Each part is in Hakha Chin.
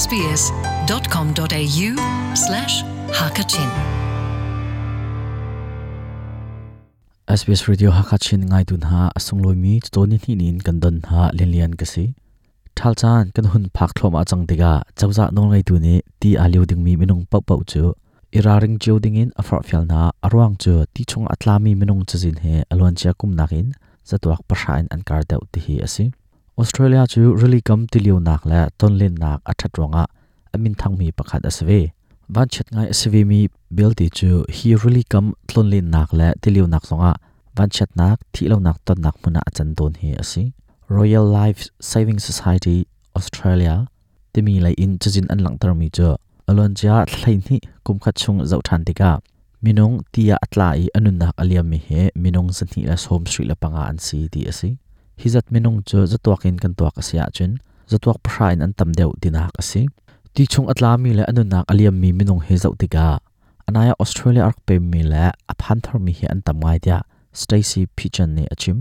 sbs.com.au slash hakachin. SBS Radio Hakachin ngai tun ha asunglawi mi chawni hni nin kan don ha lianlian ka si. Thal caan kan hun phak thluahmah cang tikah cozah nawlngeitu nih ti aa lio dingmi minung paohpaoh cu i ralring cio dingin a forhfial hna. A ruang cu ti chung a tlami minung cazin he a luancia kum nakin zatuak pahra in an kar deuh ti hi a si. Australia cu rili kam tilionak le tonlennak a ṭhat ruangah a minthangmi pakhat a si ve. Vanchiat ngai a si vemi belte cu hi rili kam tlonlennak le tilionak zongah vanchiatnak, thihlonak tonnak hmun ah a can tawn hi a si. Royal Life Saving Society Australia timi lei in cazin an langhtermi cu a luancia thla hleihnih kum khat chung zoh ṭhan tikah minung ti ah a tla i a nunnak a liammi hi minung 275 an si ti a si. Hi zat minung cu zatuak in kan tuak a si ahcun zatuak pahra in an tam deuh tinak a si. Ti chung a tlami le a nunnak a liammi minung hi zoh tikah anai ah Australia a rak pemmi le a phan tharmi hi an tam ngai tiah Stacy Pigeon nih a chim.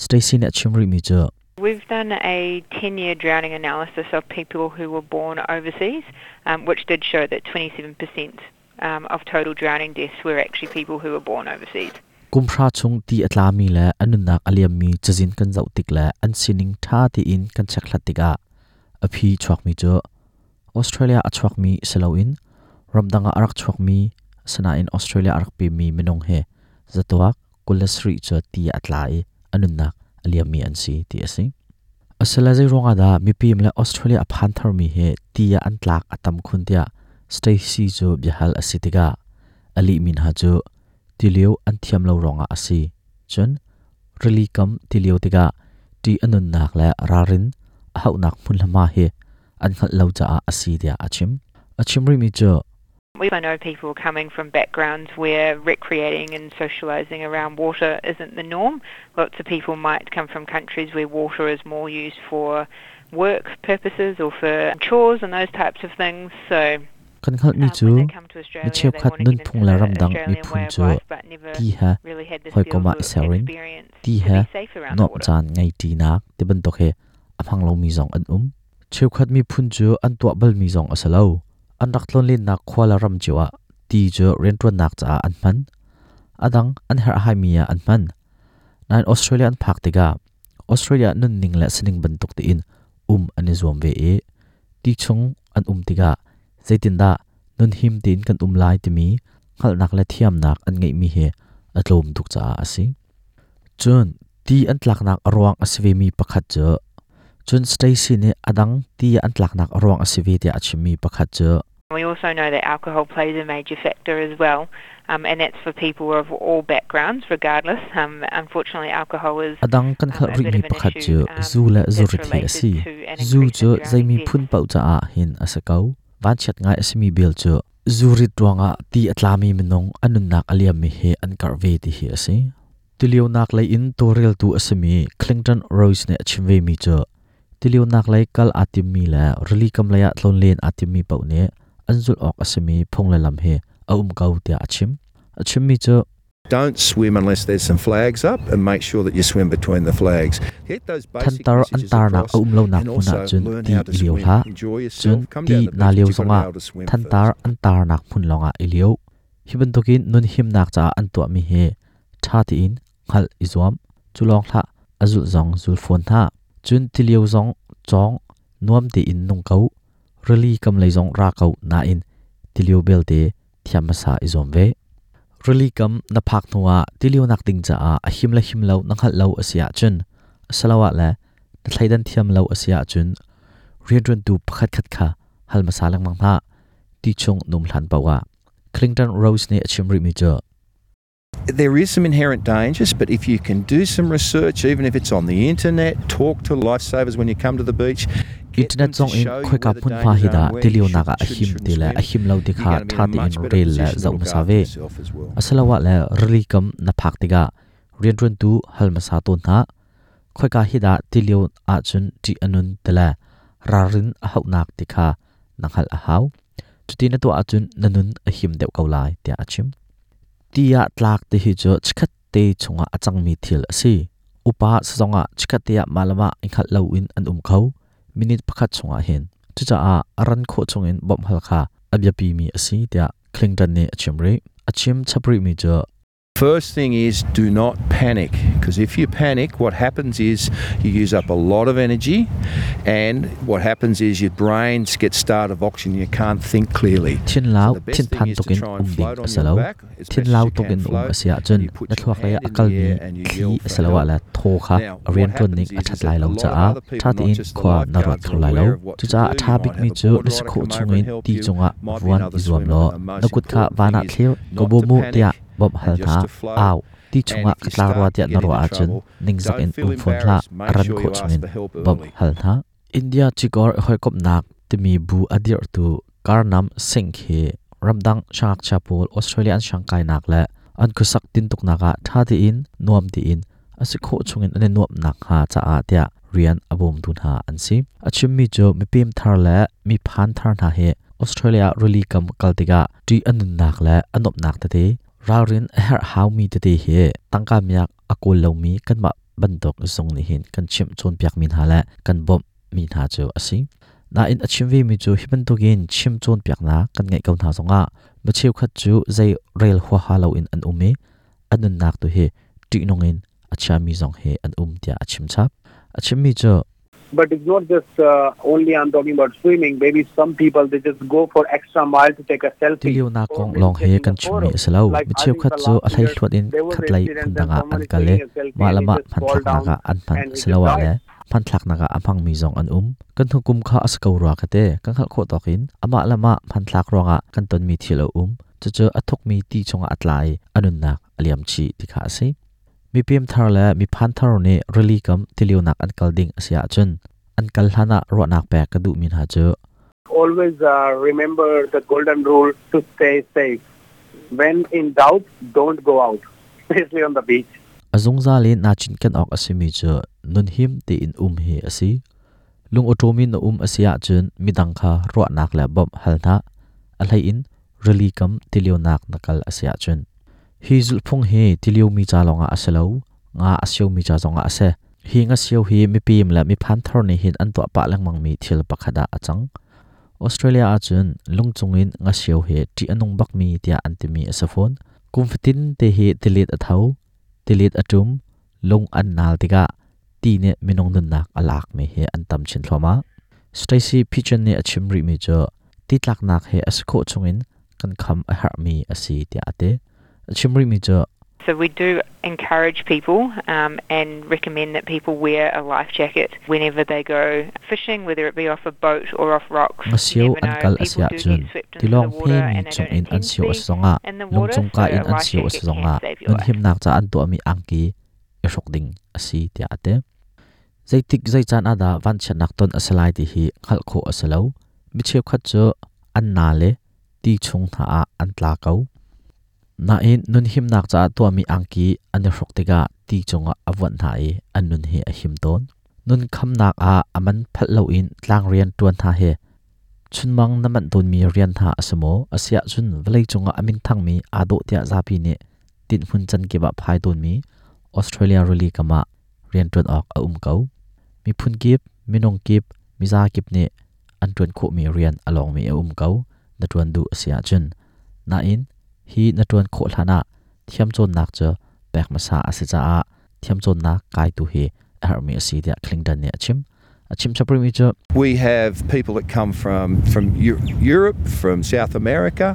Stacy nih a chim rihmi cu We've done a 10-year drowning analysis of people who were born overseas, which did show that 27% of total drowning deaths were actually people who were born overseas. Kum hra chung ti a tlami le a nunnak a liammi cazin kan zoh tik le an sining ṭha tein kan chekhlat tikah a phi chuakmi cu Australia a chuakmi si loin ramdang ah a rak chuakmi asinain Australia a rak pemmi minung he zatuak 27 cu ti ah a tla i a nunnak a liammi an si ti a si. Asile zei ruangah dah mipim le Australia a phan tharmi hi ti ah an tlak a tam khun tiah Stacy cu biahal a si tikah a lihmi hna cu tilio an thiam lo ruangah a si. Cun rili kam tilio tikah ṭih a nunnak le ralrin a hauhnak hmunhma hi an hngalh lo caah a si tiah a chim. A chim rihmi cu We know people coming from backgrounds where recreating and socialising around water isn't the norm. Lots of people might come from countries where water is more used for work purposes or for chores and those types of things. So Kan hngalhmi cu mi cheukhat nunphung le ramdang miphun cu ti he hawikom ah i ser in ti he nuamh caan ngei ṭinak ti bantuk hi a hmang lomi zong an um. Cheukhat miphun cu an tuah balmi zong a si lo. An rak tlawnlennak khua le ram cio ah ti cu rianṭuannak caah an hman. A dang an herhhaimi ah an hman. Nain Australia an phak tikah Australia nunning le sining bantuk tein um an i zuam ve i ti chung an um tikah zeitindah nunhim tein kan um lai timi hngalhnak le thiamnak an ngeihmi hi a tlawm tuk caah a si. Cun ti an tlaknak a ruang a si vemi pakhat cu cun Stacy nih a dang ti an tlaknak a ruang a si ve tiah a chimmi pakhat cu We also know that alcohol plays a major factor as well, and that's for people of all backgrounds, regardless. Unfortunately, alcohol is A dang kan hngalh a bit rihmi of an pakhat issue cu zu le that's zurit hi a related si. to an Zu increase cu in drowning zeimi deaths. phun paoh caah hin a si ko. Vanchiat ngai a simi bel cu zurit ruangah ti a tlami minung a nunnak a liammi hi an karh ve ti hi a si. Tilionak lei in tawlreltu a simi Clinton Rose nih a chim vemi cu tilionak lei kal aa timmi le rili kam lei ah tlawnlen aa timmi paoh nih an zulh awk a simi phung le lam hi a um ko tiah a chim. A chimmi cu Don't swim unless there's some flags up and make sure that you swim between the flags. Get those basic thantar an messages tarnak across a um lonak and hmun also ahcun learn ti how to i lio swim. hlah. Enjoy Cun yourself. Come ti down the naa beach, lio but you've got to zongah be able to swim thantar first. an tarnak hmun lawngah i lio. Hi bantukin nun himnak caah an tuahmi hi ṭha tein hngalh i zuam. Cu lawng hlah, a zulh zong zul fawn hna. Cun tilio zong cawng, nuam tein nung ko. Rili kam lei zong ra ko nain tilio belte thiam hmasa i zuam ve. Rili kam na phak hnuah tilionak ding caah a him le him lo na hngalh lo a si ahcun asiloah le na thleidan thiam lo a si ahcun rianṭuantu pakhatkhat kha hal hmasa lengmang hna. Ti chung num hlan paoh ah. Clinton Rose nih a chim rihmi cu There is some inherent dangers, but if you can do some research, even if it's on the internet, talk to lifesavers when you come to the beach, get Internet them to zong in show you khoika where the hmunhma dangers hi are dah and where you tilionak should ah a and him shouldn't ti le swim, a him lo ti you're kha going to be ṭha in a tein much better rel le position to zoh look hmasa after ve. yourself as well. Asiloah le rili kam na phak tikah rianṭuantu hal hmasa tawn hna. Khoika hi dah tilio ahcun ṭih a nun ti le ralrin a hauhnak ti kha na hngalh a hau. Cuti na tuah ahcun na nun a him deuh ko lai tiah a chim. Ti ah tlak ti hi cu chikkhat te chungah a cangmi thil a si. Upa sazong ah chikkhat te ah mah le mah i hngalh loin an um kho. Minute pakhat chungah hin. Cucaah a ran khawh chungin bawmh hal kha a biapimi a si tiah Clinton nih a chim rih. A chim chap rihmi cu First thing is do not panic, because if you panic, what happens is you use up a lot of energy, and what happens is your brains get starved of oxygen, you can't think clearly. Thinlau thinphan tukin um ding a si lo. Thinlau tukin um a si ahcun na thluak lei ah a kalmi thli asiloah le thaw kha a rianṭuan ning a ṭhat lai lo caah ṭha tein khua na ruat kho lai lo. Cucaah a ṭha bikmi cu na si khawh chungin ti cungah vuan i zuam law na kut kha van ah thlir, ka bawm u tiah bawmh hal hna. Au, ti chungah ka tla rua tiah na ruah ahcun ningzak in um fawn hlah, a ran khawh chungin bawmh hal hna. India cikor i hawikomhnak timi bu a dirhtu Karnam Singh hi ramdang siangngakchia pawl Australia an siangkainak le an khuasak tintuknak ah ṭha tein nuam tein a si khawh chungin an i nuamh nakhnga caah tiah rian a bawmtu hna an si. A chimmi cu mipem thar le mi phan thar hna hi Australia rili kam kal tikah ṭih a nunnak le a nuamhnak tete ralrin a herh haumi tete hi tangka miak a kawl lomi kanmah bantuk zung nih hin kan chimh cawnpiakmi hna le kan bawmhmi hna cu a si. Nain a chim vemi cu hi bantukin chim cawnpiaknak kan ngeih ko hna zongah mi cheukhat cu zei rel huaha loin an um i a nunnak tu hi ṭihnung in a chiami zong hi an um tiah a chim chap. A chimmi cu But it's not just uh, only I'm talking about swimming. Maybe some people they just go for extra mile to take a selfie. Tilionak kong lawng hi kan chimmi a si lo. Mi cheukhat cu a hleihluat in khatlei phundang ah an kal i mah le mah hmanthlaknak ah an hman asiloah le hmanthlaknak ah a hmangmi zong an um. Kan hnukum kha a si ko rua ka ti. Kan hngalh khawh tawk in amah le mah hmanthlak ruangah kan tonmi thil a um. Cucu a thukmi ti chungah a tla i a nunnak a liam chih ti kha a si. Mipem thar le miphan thar nih rili kam tilionak an kal ding a si ahcun an kal hlan ah ruahnak pek ka duhmi hna cu Always uh, remember the golden rule to stay safe. When in doubt, don't go out, especially on the beach. A zungzal in naa cinken awk a simi cu nunhim tein um hi a si. Lung awṭawm in na um a si ahcun midang kha ruahnak le bawmh hal hna. A hlei in rili kam tilionak na kal a si ahcun. Hi zulhphung hi tiliomi ca lawngah a si lo, nga a siomi ca zongah a si. Hi ngasio hi mipim le miphan thar nih hin an tuah pah lengmangmi thil pakhat ah a cang. Australia ahcun lungcung in ngasio hi ṭih a nung bakmi tiah an timi a si fawn. Kum fatin te hi tilet a tho, tilet a ṭum, lung an naal tikah ti nih minung nunnak a lakmi hi an tam chin thluahmah. Stacy Pigeon nih a chim rihmi cu ti tlaknak hi a si khawh chungin kan kham a herhmi a si tiah a ti. A chim rihmi cu So we do encourage people um, and recommend that people wear a life jacket whenever they go fishing, whether it be off a boat or off rocks. Ngasio an kal a si ahcun tilawng hmemi chungin an sio a si zongah lungcung ka in an sio a si zongah nunhimnak ca an tuahmi angki i hruk ding a si tiah a ti. Zeitik zei caan ah dah vanchiatnak ton a si lai ti hi hngalh khawh a si lo. Mi cheukhat cu an na le ti chung hna ah an tla ko. Nain nunhimnak caah tuahmi angki an i hruk tikah ti cungah a vuanh hna i an nun hi a him tawn. Nun khamnak ah a man phalh loin tlangrian ṭuan hna hi chunmang na manh tawnmi rian hna a si maw? Asiahcun vawleicung ah a minthangmi aa dawh tiah zapi nih tinhmun can kip ah phai tawnmi Australia rili kam ah rianṭuan awk a um ko. Miphun kip, minung kip, miza kip nih an ṭuan khawhmi rian a lawngmi a um ko na ṭuan duh a si ahcun. Nain hi na ṭuan khawh hlanah thiamcawnnak cu pek hmasa a si caah thiamcawnnak kaitu hi a herhmi a si tiah Clinton nih a chim. A chim chap rihmi cu We have people that come from from Europe, from South America.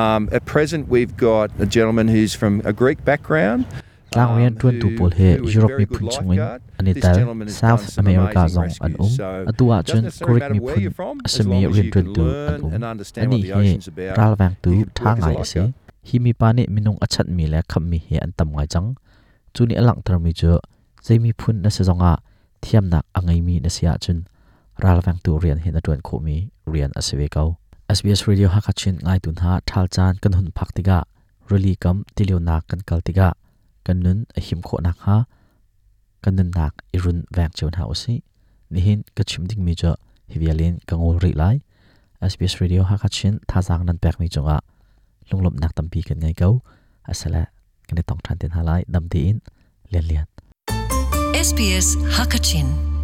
Um, at present, we've got a gentleman who's from a Greek background. Tlangrian ṭuantu pawl hi Europe miphun chungin an i tel. South America zong an um. Atu ahcun Greek miphun a simi rianṭuantu an um. Anih hi ralvengtu ṭha ngai a si. Hi mipa nih minung a chanhmi le khamhmi hi an tam ngai cang. Cu nih a langhtermi cu zei miphun na si zongah thiamnak a ngeimi na si ahcun ralvengtu rian hi na ṭuan khawhmi rian a si ve ko. SBS Radio Hakha Chin ngaitu hna ṭhal caan kan hun phak tikah rili kam tilionak kan kal tikah kan nun a him khawh nakhnga kan nunnak i run veng cio hna usih. Nihin ka chim dingmi cu hi vial in ka ngol rih lai. SBS Radio Hakha Chin thazaang nan pekmi cungah lunglawmhnak tampi kan ngei ko. Asale kan i tong ṭhan te hna lai. Dam tein Lian Lian. SBS Hakachin.